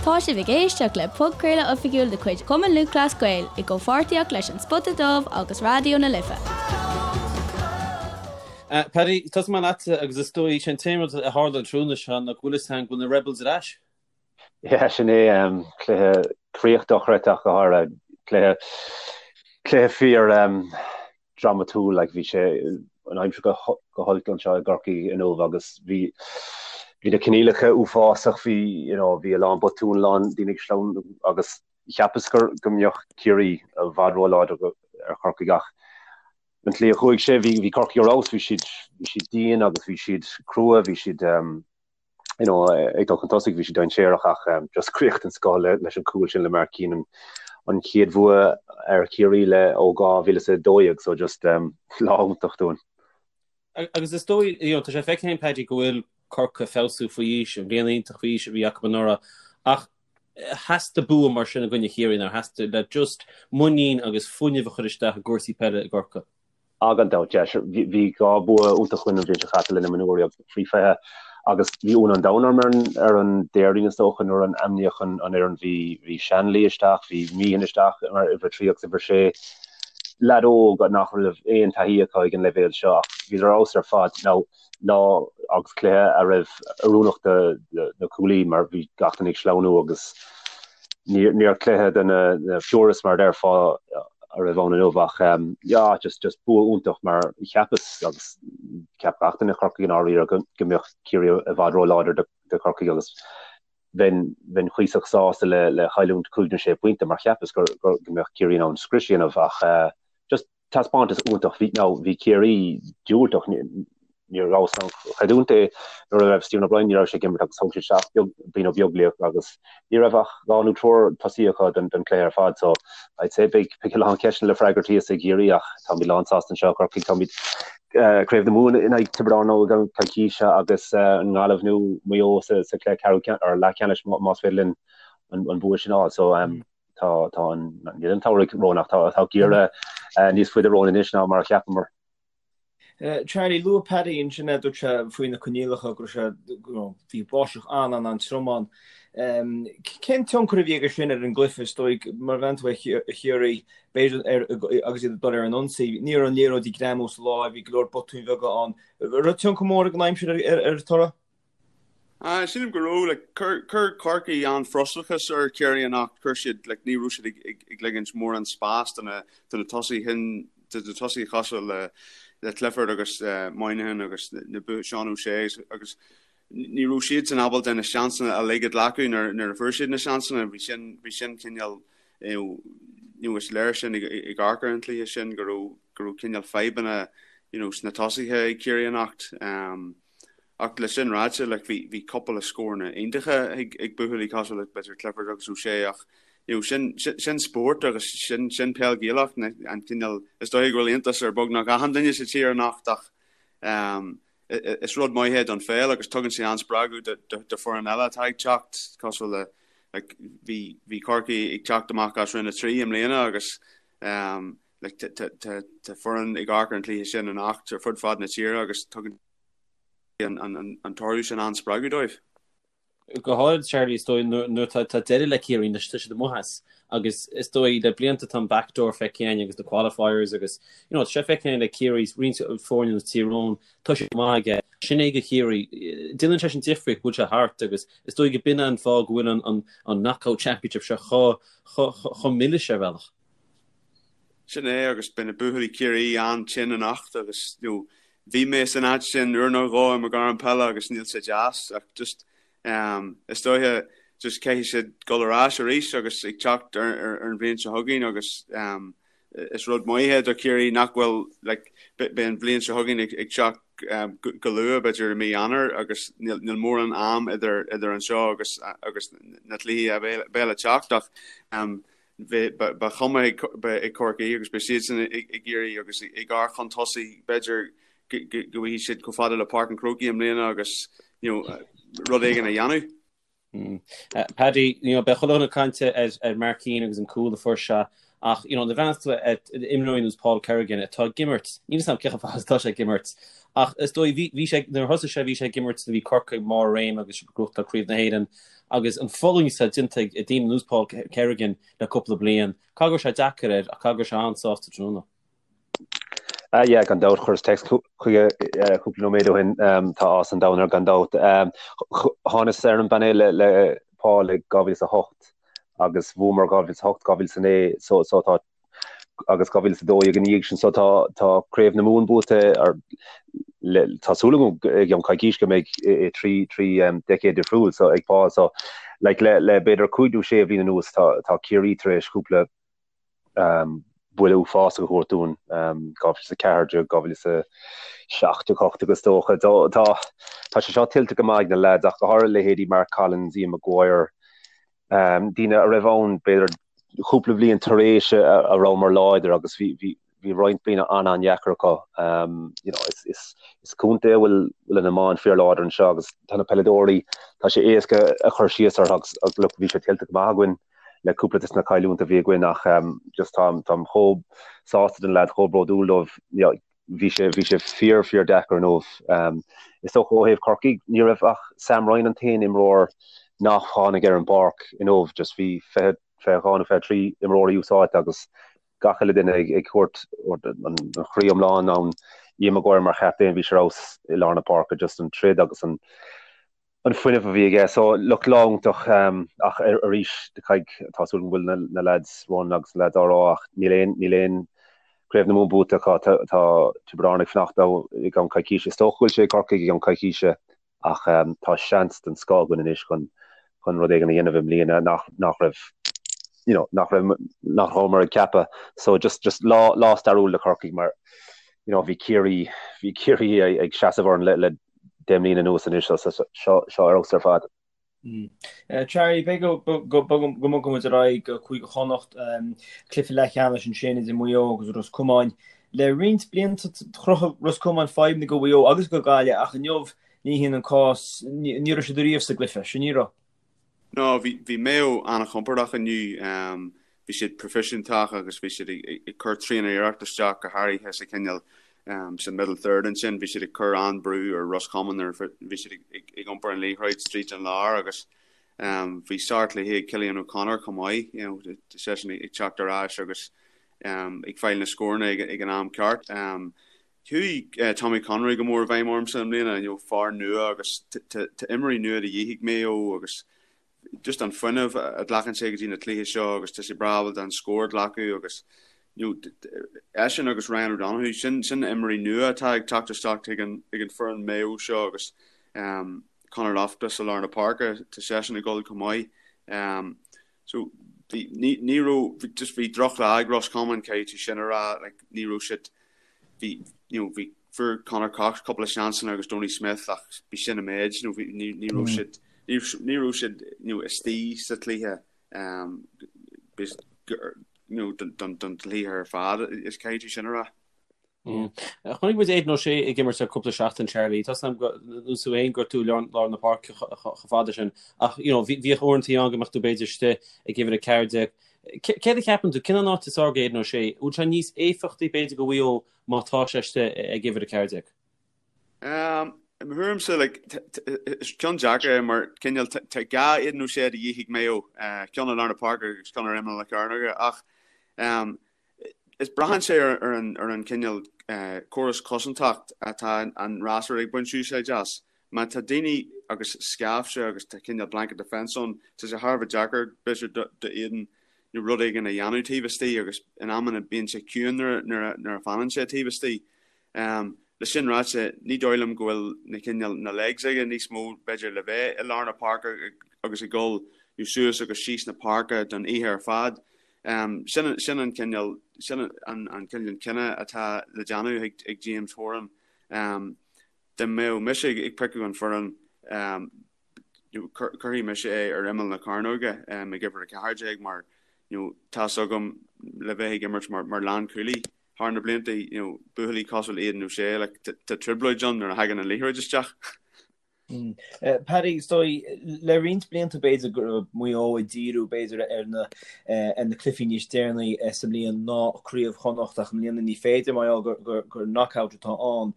Tá sibh ag éisteacht le podchraoladh oifigiúil de chuid Chumann Lúthchleas Gael i gcomhpháirtíocht leis An Spota Dubh agus Raidió na Life. Paddy, tosóidh mé leatsa agus is dóigh sé an t-aon rud a tharla an tráthnóna seo ná go bhfuil fhios agam go bhfuil na Rebels ar ais. Yeah, sin é, cluiche críoch dochreidte ach go háirithe, cluiche, cluiche fíor dramatúil, like bhí sé an aimsir go go holc anseo i gCorcaigh inniu agus bhí bhí na coinníollacha uafásach, bhí you know bhí a lán botún, a lán daoine ag sleamhnú agus cheapas gur go mbeadh Ciarraí i bhfad róláidir ar Chorcaigh ach an tslí a chuaigh sé, bhí bhí Corcaigh ar fheabhas, bhí siad bhí siad dian agus bhí siad crua, bhí siad you know, ag dul chun tosaigh, bhí siad dainséarach ach just críoch den scoth leis an cúl sin le Mark Keenan, an chéad bhua ar Chiarraí le ó 2012, so just lá iontach dúinn. Agus is dóigh, you know, tá sé feicthe againn Paddy go bhfuil Corcaigh ag feabhsú faoi aois, an bhliain iontach faoi aois a bhí acu anuraidh, ach theastaigh bua mar sin i gcoinne Chiarraí, nár theastaigh, le just muinín agus fuinneamh a chur isteach i gcúrsaí peile i gCorcaigh. Ah gan dabht, yeah, sure. Bhí 2 bua iontach againn an bhliain seo caite le na mionúirí agus faoi 20 agus bhí ionadh an domhain orm ar an ar an Déardaoin is dócha nuair a ainmníodh an an fhoireann. Bhí bhí Shanley isteach, bhí Meehan isteach mar uimhir 3 agus uimhir 6. Leaid óg nach raibh aon taithí acu ag an leibhéal seo ach bhíodar ar fheabhas ar fad. Now lá agus cluiche a raibh oiriúnach do na cúlaí mar bhí gach duine ag sleamhnú agus níor cluiche do na purists mar a déarfá a raibh ann inniu ach yeah just just bua iontach mar cheapas agus cheap gach duine i Corcaigh i ndáiríre go go mbeadh Ciarraí i bhfad róláidir do do Chorcaigh agus bheinn bheinn cuíosach sásta le le chailliúint 5 nó 6 pointe mar cheapas gur go mbeadh Ciarraí in ann scrios a dhéanamh ach just Taispeántas iontach. Bhí, now, bhí Ciarraí diúltach, ní rabhas in ann creidiúint é nuair a raibh Stephen O'Brien, ní raibh sé ag imirt agus thóg siad isteach beag, Brian Ó Beaglaoich agus ní raibh ach 2 nó triúr tosaí acu don, don chluiche ar fad so I'd say beidh, beidh a lán ceisteanna le freagairt thíos i gCiarraí ach táimid lán sásta anseo i gCorcaigh, táimid eh, Craobh na Mumhan in aghaidh Tiobraid Árann i gceann coicíse agus eh, an Ghaillimh nó Maigh Eo sa, sa chluiche ceathrú ceann, or leathcheannais más féidir linn an, an bua sin a fháil so um, Tá tá an níl an samhradh romhainn ach tá tá geimhreadh níos faide romhainn anois ná mar a cheapamar. Charlie, luaigh Paddy ansin é dúirt sé faoi na coinníollacha go raibh sé bhí báisteach an-an-an-trom ann. Cén tionchar a bhí aige sin ar an gcluiche is dóigh mar bhean tú ar Chiarraí b'fhéidir ar agus iad ag dul ar an ionsaí. Ní raibh an liathróid ag greamú sa láimh, bhí go leor botúin bheaga ann. Raibh tionchar mór ag an aimsir ar ar an toradh? Sílim go raibh, like, chuir, chuir Corcaigh an-fhrustrachas ar Chiarraí anocht, chuir siad, like, ní raibh siad ag, ag, ag ligint mórán spás do na, do na tosaithe sin, do na tosaithe cosúil le, le Clifford agus Moynihan agus na, Seán O'Shea agus ní raibh siadsan ábalta na seansanna uilig a ghlacadh nuair, nuair a fuair siad na seansanna, bhí sin, bhí sin cineál, you know, is léir sin ag, ag amharc ar an chluiche sin go raibh, go raibh cineál fadhbanna, you know, sna tosaithe ag Ciarraí anocht. Um, Ach le sin ráite, like, bhí, bhí cúpla scóranna iontacha ag, ag buachaillí cosúil le b'fhéidir Clifford agus O'Shea ach, you know, sin, sin, sin spórt agus sin, sin peil Ghaelach, an cineál, is dóigh go bhfuil iontas ar beagnach achan duine sa tír anocht ach, um, is rud maith é don pheil agus tugann sé an-spreagadh do, do, do foireann eile atá ag teacht cosúil le, like, bhí, bhí Corcaigh ag teacht amach as Roinn 3 i mbliana agus, um, like, tá, tá, tá, tá foireann ag amharc ar an chluiche sin anocht ar fud fad na tíre agus tugann an toradh sin an-spreagadh dóibh. Go háirid, Charlie, is dóigh nuair tá deireadh le Ciarraí anois, tá siad amuigh as agus is dóigh le blianta tá an backdoor feicthe againn agus na qualifiers agus you know, tá sé feicthe againn le Ciarraí roinnt foirne nós Tír Eoghain, tá sé maith aige. Sin é do Chiarraí. Déanann sé sin difríocht go bhfuil sé thart agus is dóigh go b'in an fáth go bhfuil an, an, an knockout championship seo chomh, chomh, chomh milis ar bhealach. Sin é agus beidh na buachaillí Ciarraí an-tinn anocht agus you know, bhí mé san áit sin uair nó dhó i mo ghairm peile agus níl sé deas ach just um, is dóiche just caithfidh siad dul ar ais arís agus ag teacht ar, ar, ar an bhliain seo chugainn agus um, is rud maith é do Chiarraí nach bhfuil like, beidh an bhliain seo chugainn ag, ag teacht um, go, go luath b'fhéidir i mí Eanáir agus níl, níl mórán am idir, idir anseo agus, agus na cluichí a bheidh le teacht ach um, Ba chuma ag Corcaigh agus beidh siadsan ag iarraidh agus ag amharc chun tosaigh, b'fhéidir go bhfaighidh siad chomh fada le Páirc an Chrócaigh i mbliana agus rud éigin a dhéanamh. Paddy, you know, beidh chuile dhuine ag caint ar Mark Keane agus an cúl a fuair sé. Ach, you know, nuair a bhreathnaíonn tú ar imreoirí ar nós Paul Kerrigan atá ag imirt, níl 'fhios a'm cé chomh fada is atá sé ag imirt, ach is dóigh, bhí, bhí sé, nuair a thosaigh sé, bhí sé ag imirt nuair a bhí Corcaigh i mbarr a réime agus ag gnóthachtáil Craobh na hÉireann agus an fulaingt atá déanta ag daoine ar nós Paul Kerrigan le cúpla bliain, caithfidh go raibh sé deacair air ach caithfidh go raibh sé an-sásta tráthnóna. Ah yeah, gan dabht, chuireas text chuige cúpla nóiméad ó shin, tá áthas an domhain air gan dabht. Thánas ar an bpainéal le Paul i 2008 agus bhuamar 2008, 2009 so so tá agus 2012 ina dhiaidh sin so tá tá Craobh na Mumhan buaite ar le tá súil agam i gceann coicís go mbeidh i 3 3 decade difriúil so ag Paul so like le le b'fhéidir 5 nó 6 bhliain anuas tá tá Ciarraí tar éis cúpla buille uafásach a thabhairt dúinn, 2014, 2017, 18 is dócha. Tá tá sé seo tuillte go maith ag na leaids ach go háirithe leithéidí Mark Collins, Ian Maguire, daoine a raibh ann b'fhéidir cúpla bliain tar éis a rabhamar láidir agus bhí bhí bhí roinnt bliana an-an-dheacair acu. You know, is is is contae a bhfuil bhfuil an iomáint fíorláidir anseo agus tá na peileadóirí, tá sé éasca a chur síos orthu agus agus look bhí sé tuillte go maith againn. le cúpla des na cailliúintí a bhí againn ach just táim táim chomh sásta do na leaids, chomh bródúil dóibh. Bhí sé bhí sé fíor fíor deacair inniu. Is dócha ó thaobh Corcaigh ní raibh ach Sam Ryan an t-aon imreoir nach tháinig ar an bpáirc inniu, just bhí 20 22 nó 23 imreoirí úsáidte agus gach uile duine ag ag thabhairt an chroí iomlán ann. Ian Maguire mar chaptaen bhí sé ar fheabhas i lár na páirce just an troid agus an an fuinneamh a bhí aige. So, look, lá iontach ach arís, caithfidh, tá súil agam go bhfuil na lads ann agus na lads á rá ach níl aon, níl aon Craobh na Mumhan buaite acu. Tá, tá Tiobraid Árann ag fanacht leo i gceann coicíse. Is dócha go bhfuil sé ag Corcaigh i gceann coicíse ach tá seans den scoth againn anois chun, chun rud éigin a dhéanamh i mbliana nach, nach raibh, you know, nach raibh, nach rabhamar ag ceapadh. So just, just lá, lá stairiúil do Chorcaigh mar, you know, bhí Ciarraí, bhí Ciarraí ag seasamh orainn le, le 10 mbliana anuas anois so seo seo ar fheabhas ar fad. Charlie, b'fhéidir go mbogfaidh muid ar aghaidh go Cúige Chonnacht, cluiche leathcheannais ansin idir Maigh Eo agus Ros Comáin. Le roinnt blianta chruthaigh Ros Comáin fadhbanna do Mhaigh Eo agus do Ghaillimh ach inniu ní hin an cás, ní raibh siad ariamh sa gcluiche sin, ní raibh? No, bhí bhí Maigh Eo an-chompordach inniu. Bhí siad proifisiúntach agus bhí siad ag cur tréan-iarracht isteach go háirithe sa chineál sa middle third ansin. Bhí siad ag cur an-brú ar Ros Comáin nuair a bhí siad ag iompar an liathróid tríd an lár agus bhí sárchluiche ag Cillian O'Connor chomh maith, you know, seisean ag teacht ar ais agus ag fáil na scóranna ag an am ceart. Chuaigh Tommy Conroy go mór i bhfeidhm ormsa i mbliana, you know, fear nua agus tá imreoirí nua de dhíth ag Maigh Eo agus just an fuinneamh a ghlacann sé go dtí na cluichí seo agus tá sé breá ábalta an scór a ghlacadh agus you know, eisean agus Ryan O'Donoghue, sin sin na imreoirí nua atá ag teacht isteach ag an ag an foireann Maigh Eo seo agus um, Conor Loftus i lár na páirce, tá seisean ag dul chomh maith. Um, so bhí ní ní raibh just bhí drochlá ag Roscommon caithfidh tú sin a rá, like, ní raibh siad bhí you know bhí fuair Conor Cox cúpla seansanna agus Donie Smith ach bhí sin an méid you know bhí ní ní raibh siad ní ní raibh siad you know istigh sa chluiche um you know don don don chluiche ar fad is caithfidh tú sin a rá. Chonaic muid Aidan O'Shea ag imirt le cúpla seachtain Charlie. Tá 's agam nós tú féin gur tú lár na páirce chomh fada sin ach you know bhíodh uaireanta ann go mbeadh tú b'fhéidir istigh ag uimhir 14. Céard a cheapann tú, cén an áit is fearr do Aidan O'Shea? Bhfuil sé níos éifeachtaí b'fhéidir do Mhaigh Eo má tá sé istigh ag uimhir 14? I mo thuairimse, like, is ceann deacair é mar cineál tá dhá Aidan O'Shea de dhíth ag Maigh Eo, ceann i lár na páirce agus ceann ar imeall na cearnóige ach is braitheann sé ar an ar an cineál córas cosantach atá an fhreasúra ag baint úsáid as. Má tá daoine agus scaifte agus tá cineál blanket defence ann, tá sé thar a bheith deacair b'fhéidir do Aidan nó rud éigin a dhéanamh taobh istigh agus in amanna bíonn sé ciúin nuair a fanann sé taobh istigh. Le sin ráite, ní dóigh liom go bhfuil na cineál na legs aige níos mó b'fhéidir le bheith i lár na páirce agus ag dul suas agus síos na páirce don oíche ar fad. Sin sin an cineál sin an an cineál cinneadh atá le déanamh ag ag James Horan. Dá mbeadh mise ag piocadh an foireann cuirfidh mise é ar imeall na cearnóige ag uimhir 14 mar you know tá's agam le bheith ag imirt mar mar lánchúlaí thar na blianta you know buachaillí cosúil le Aidan O'Shea like tá trioblóid ann nuair a thagann an liathróid isteach. Paddy, is dóigh, le roinnt blianta b'fhéidir go raibh Maigh Eo ag díriú b'fhéidir ar na ar na cluichí níos deireanaí sa mbliain ná Craobh Chonnacht ach i mbliana ní féidir mar gheall gur gur knockout atá ann.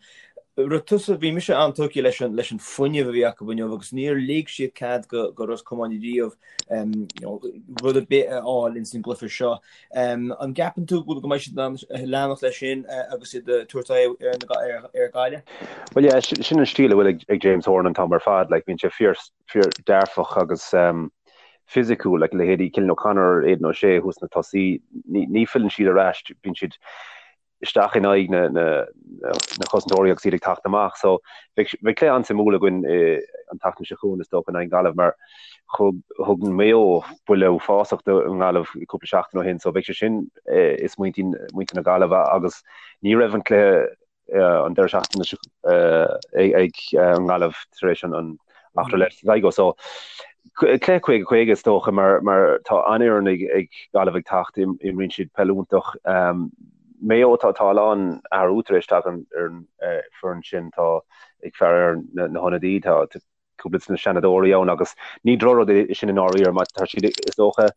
Raibh tusa, bhí mise an-tógtha leis an leis an fuinneamh a bhí acu inniu agus níor lig siad cead go go Ros Comáin riamh rud ar bith a fháil ins an gcluiche seo. An gceapann tú go mbeidh siad in ann leanacht leis sin agus iad ag tabhairt aghaidh ar Ghaillimh? Bhuel yeah, sin an stíl a bhfuil ag James Horan an t-am ar fad, like bíonn sé fíor fíor dearfach agus fisiciúil, like leithéidí Cillian O'Connor, Aidan O'Shea thuas sna tosaí, ní filleann siad ar ais, bíonn siad isteach in aghaidh na chosantóirí agus iad ag teacht amach. So beidh cluiche an-suimiúil againn an tseachtain seo chugainn is dócha in aghaidh Gaillimh mar thug thug Maigh Eo buille uafásach don nGaillimh cúpla seachtain ó shin so beidh sé sin i smaointe muintir na Gaillimhe agus ní raibh an cluiche an deireadh seachtaine seo ag an nGaillimh tar éis an eachtra le Sligo. So cluiche 50-50 is dócha mar mar tá an-fhoireann ag ag Gaillimh ag teacht, imríonn siad peil iontach. Maigh Eo tá tá a lán athrú tar éis teacht ar an foireann sin, tá ag faire ar na na hionadaí, tá cúpla de na seanadóirí ann agus ní drochrud é sin i ndáiríre mar tá siad is dócha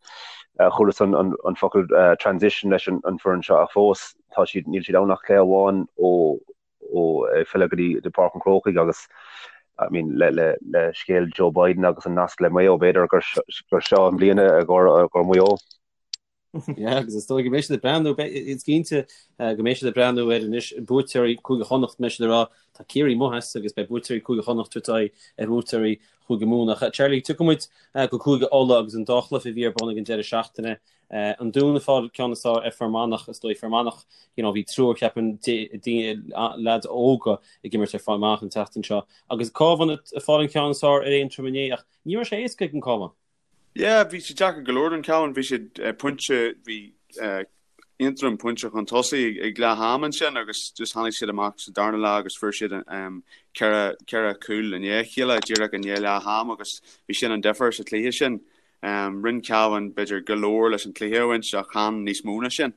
chualas an an an focal transition leis an an foireann seo ach fós tá siad níl siad ann ach cluiche amháin ó ó filleadh go dtí Páirc an Chrócaigh agus I mean le le le scéal Joe Biden agus an nasc le Maigh Eo b'fhéidir gur gur seo an bhliain i gcomhair Maigh Eo. Yeah, agus is dóigh go mbeidh siad ag breathnú, is cinnte go mbeidh siad ag breathnú ar anois buaiteoirí Cúige Chonnacht, mbeidh siad ag rá tá Ciarraí amuigh as agus beidh buaiteoirí Cúige Chonnacht ag tabhairt aghaidh ar bhuaiteoirí Chúige Mumhan. Ach Charlie, tiocfaidh muid go Cúige Uladh agus an dá chluiche a bhí ar bun ag an deireadh seachtaine. An Dún ag fáil ceann is fearr ar Fear Manach, is dóigh Fear Manach, you know, bhí triúr ceapaim leaids óga ag imirt ar Fear Manach an tseachtain seo. Agus Cabhán ag fáil an ceann is fearr ar Aontroim inné ach ní raibh sé éasca ag an Cabhán. Yeah, bhí sé deacair go leor don Cabhán, bhí siad pointe, bhí Aontroim pointe chun tosaigh ag leath am ansin agus just tháinig siad amach sa darna leath agus fuair siad ceithre ceithre chúl i ndiaidh a chéile díreach i ndiaidh leath am agus bhí sin an difear sa chluiche sin. Rinne Cabhán b'fhéidir go leor leis an cluiche a bhaint ach chan níos mó ná sin.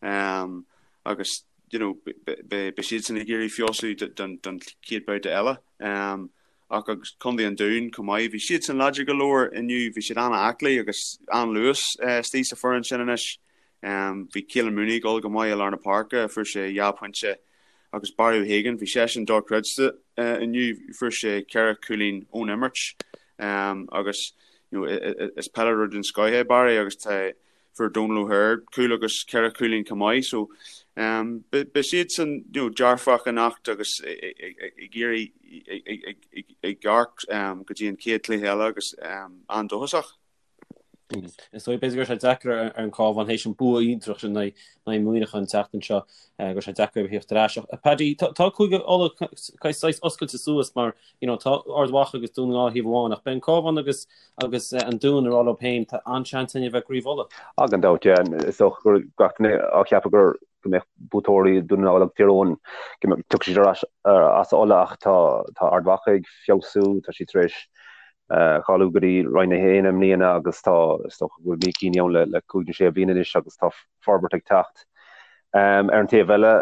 Agus you know beidh siadsan ag iarraidh feabhsú don chéad babhta eile. Ach agus Contae an Dúin chomh maith, bhí siadsan láidir go leor inniu, bhí siad an-aclaí agus an-luas istigh sa foireann sin anois. Bhí Keelan Mooney ag dul go maith i lár na páirce, fuair sé dhá phointe agus Barry O'Hagan, bhí seisean dochreidte inniu, fuair sé ceithre chúilín ón imirt agus you know is peileadóir den scoth é Barry agus tá fuair Donal O'Hare cúl agus ceithre chúilín chomh maith so beidh siadsan you know dearfach anocht agus ag iarraidh ag amharc go dtí an chéad chluiche eile agus an-dóchasach. Is dóigh b'fhéidir go raibh sé deacair ar an Cabhán théis an bua iontach sin in aghaidh Muineachán an tseachtain seo go raibh sé deacair a theacht ar ais. Ach Paddy, tá Cúige Uladh saghas oscailte suas mar you know tá Ard Mhacha agus Dún na nGall thaobh amháin ach beidh an Cabhán agus agus an Dún ag rá leo féin tá an-seans againn a bheith i gCraobh Uladh. Ah gan dabht, yeah. Is dócha go raibh gach duine á cheapadh gur go mbeadh buaiteoirí Dún na nGall agus Tír Eoghain go mbeadh tiocfaidh siad ar ais as Uladh ach tá tá Ard Mhacha ag feabhsú, tá siad tar éis cháiliú go dtí Roinn 1 i mbliana agus tá, is dócha go bhfuil Mícíní ann le cúig nó sé bliana anois agus tá forbairt ag teacht. Ar an taobh eile,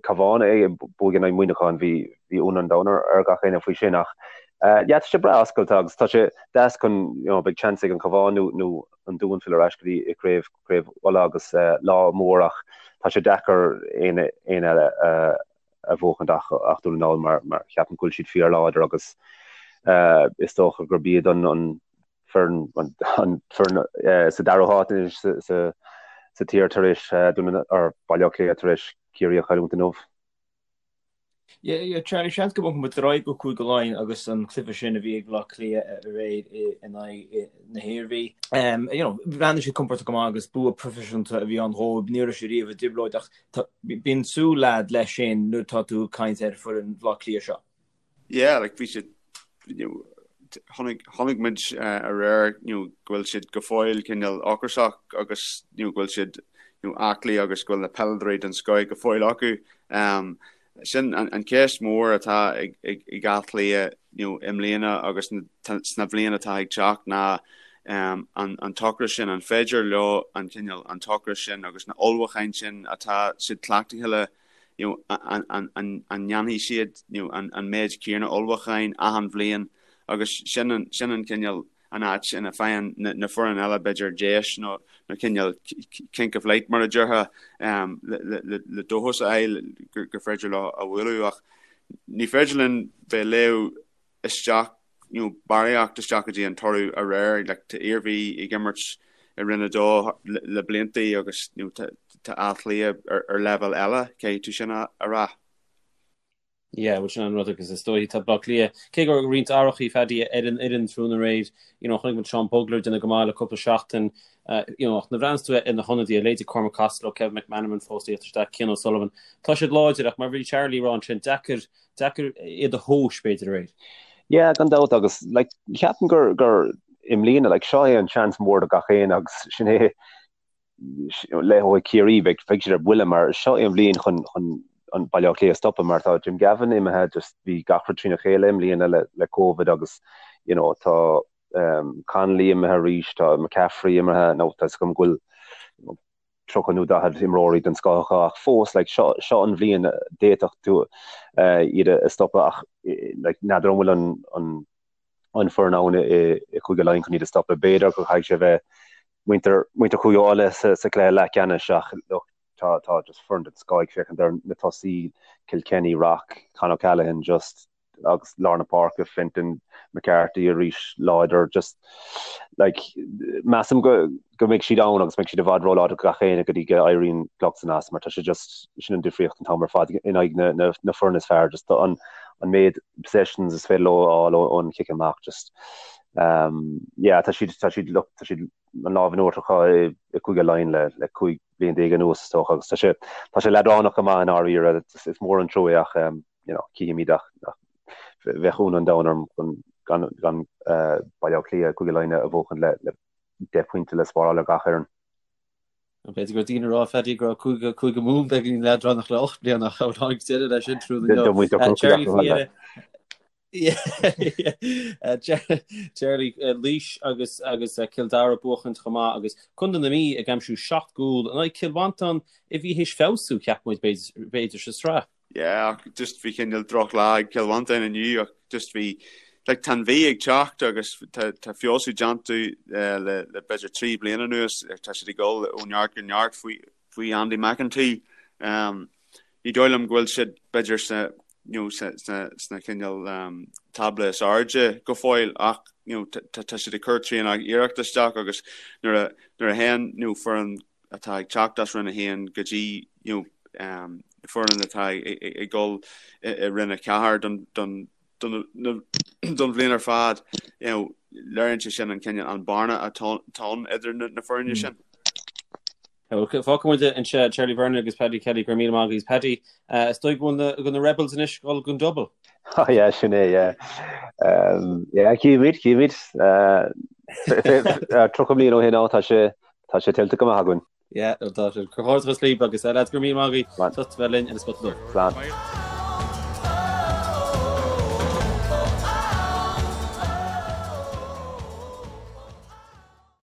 Cabhán ag buachaint in aghaidh Muineacháin, bhí ionadh an domhain ar gach éinne faoi sin ach yeah tá sé breá oscailte agus tá sé deas chun, you know, beidh seans ag an Chabhán nó nó an Dún filleadh ar ais go dtí craobh craobh Uladh agus lá mór ach tá sé deacair éinne eile a a bhuachaint ach ach Dún na nGall mar mar cheapaim go bhfuil siad fíorláidir agus is dócha gurb iad an an foireann an foireann sa dara háit anois sa sa sa tír tar éis Dún na or Baile Átha Cliath tar éis Ciarraí a chailliúint inniu. Yeah, yeah, Charlie, seans go mbogfaidh muid ar aghaidh go Cúige Laighean agus an cluiche sin a bhí ag Bleá Cliath aréir in aghaidh na hIarmhí. You know, bhreathnaigh siad compordach go maith agus bua proifisiúnta a bhí ann dhóibh. Ní raibh siad riamh i dtrioblóid ach Bíonn súil a'd leis sin nuair atá tú ag caint ar foireann Bhaile Átha Cliath seo. Yeah, like bhí siad, you know, chonaic, chonaic muid aréir, you know, go bhfuil siad go fóill cineál ocrasach agus, you know, go bhfuil siad, you know, aclaí agus go bhfuil na peileadóirí den scoth go fóill acu. Um, sin an, an ceist mór atá ag, ag, ag Áth Cliath, you know, i mbliana agus sna bhliain atá ag teacht ná an, an t-ocras sin, an féidir leo an cineál, an t-ocras sin agus na ullmhúcháin sin atá siad cleachtaithe le. you know, an, an, an, an ndéanfaidh siad you know, an, an méid céanna ullmhúcháin achan bhliain agus sin an, sin an cineál an áit ina faigheann na, na foireann eile b'fhéidir deis nó, nó cineál kink of light mar a déarfá um, le, le, le, le dóchas a fháil gur, gur féidir leo a bhualadh ach ní féidir linn bheith ag léamh isteach you know, barraíocht isteach go dtí an toradh aréir. Like, tá Iarmhí ag imirt i Roinn 2 le, le blianta agus you know, tá, tá Áth Cliath ar, ar leibhéal eile, caithfidh tú sin a, a rá. Yeah, bhuel sin an rud agus is dóigh tá Baile Átha Cliath, cé go raibh roinnt athrachaí Phaddy ar an fhoireann tráthnóna aréir, you know, chonaic muid Seán Bugler ag déanamh go maith le cúpla seachtain, you know, ach nuair a bhreathnaíonns tú ar na hionadaithe, leithéidí Cormac Costello, Kevin McManamon fós ag teacht isteach, Cian O'Sullivan, tá siad láidir ach mar a bhí Charlie ag rá ansin, deacair Deacair iad a thomhas, b'fhéidir, aréir. Yeah, gan dabht agus like ceapaim gur gur i mbliana like seo é an seans mór do gach éinne agus sin é leithéidí Ciarraí beidh beidh siad ar buile mar seo é an bhliain chun chun an Baile Átha Cliath a stopadh mar tá Jim Gavin imithe just bhí gach rud trína chéile i mbliana le le Covid agus you know tá um, Connolly imithe arís tá McCaffrey imithe nó tá a fhios agam go bhfuil you know, 30 nó 40 imreoirí den scoth acu ach fós like seo seo an bhliain d'fhéadfadh tú iad a stopadh ach like n'fheadar an bhfuil an an an foireann ann i i Cúige Laighean chun iad a stopadh. B'fhéidir go gcaithfidh sé bheith muintir muintir Chúige Uladh sa sa chluiche leathcheannais ach look tá tá just foireann den scoth ag féachaint ar na tosaí Kilkenny, Rock, Con O'Callaghan just agus lár na páirce, Fenton, McCarthy arís láidir, just like measaim go go mbeidh siad ann agus beidh siad i bhfad róláidir do gach éinne go dtí go éiríonn clog san as mar tá sé just sin an difríocht an t-am ar fad in aghaidh na na na foireann is fearr just an an méid possessions is féidir leo a fháil ón chic amach just um yeah tá siad tá siad look tá siad an lámh in uachtar acu i i Cúige Laighean le le 15 bliain anuas is dócha agus tá sé tá sé leadránach go maith i ndáiríre is mór an trua é ach um you know, cífimid ach bheadh ionadh an domhain orm chun gan gan Baile Átha Cliath Cúige Laighean a bhuachan le le 10 pointe le spáráil ar gach fhoireann. B'fhéidir go raibh daoine ag rá Phaddy go raibh Cúige Cúige Mumhan beagáinín leadránach le 8 mbliana ach tháinig deireadh leis sin tráthnóna inniu. Charlie faoi dheireadh. Charlie Laois agus agus Cill Dara buachaint chomh maith agus Contae na Mí ag aimsiú 7 gcúl in aghaidh Cill Mhantáin a bhí théis feabhsú cheap muid b'fhéidir sa sraith. Yeah, ach just bhí cineál drochlá ag Cill Mhantáin inniu ach just bhí like tá an Mhí ag teacht agus tá tá feabhsú déanta eh, le le b'fhéidir 3 bliana anuas tá siad ag dul ó neart go neart faoi faoi Andy McEntee. Um, ní dóigh liom go bhfuil siad b'fhéidir sa you know, sa sna sna cineál um, tábla is airde go fóill ach you know, tá tá siad ag cur tréan iarracht isteach agus nuair a nuair a théann you know, foireann atá ag teacht as Roinn 1 go dtí you know, um, foireann atá ag dul i Roinn 4 don, don, don, don bhliain ar fad, you know, léiríonn sé sin an cineál an bearna atá ann idir na, na foirne hmm. sin. Fágfaidh muid anseo Charlie Vernon agus Paddy Kelly go raibh míle maith agaibh Paddy uh, is dóigh go bhfuil na Rebels anois ag dul don double. Oh, yeah, sin é, yeah. Um, yeah, cífimid, cífimid. Uh, 30 bliain ó shin tá sé Tá sé tuillte go maith againn. Yeah, tá sé. Comhghairdeachas libh agus lads go raibh míle maith agaibh as ucht a bheith linn ar an Spota Dubh. Slán.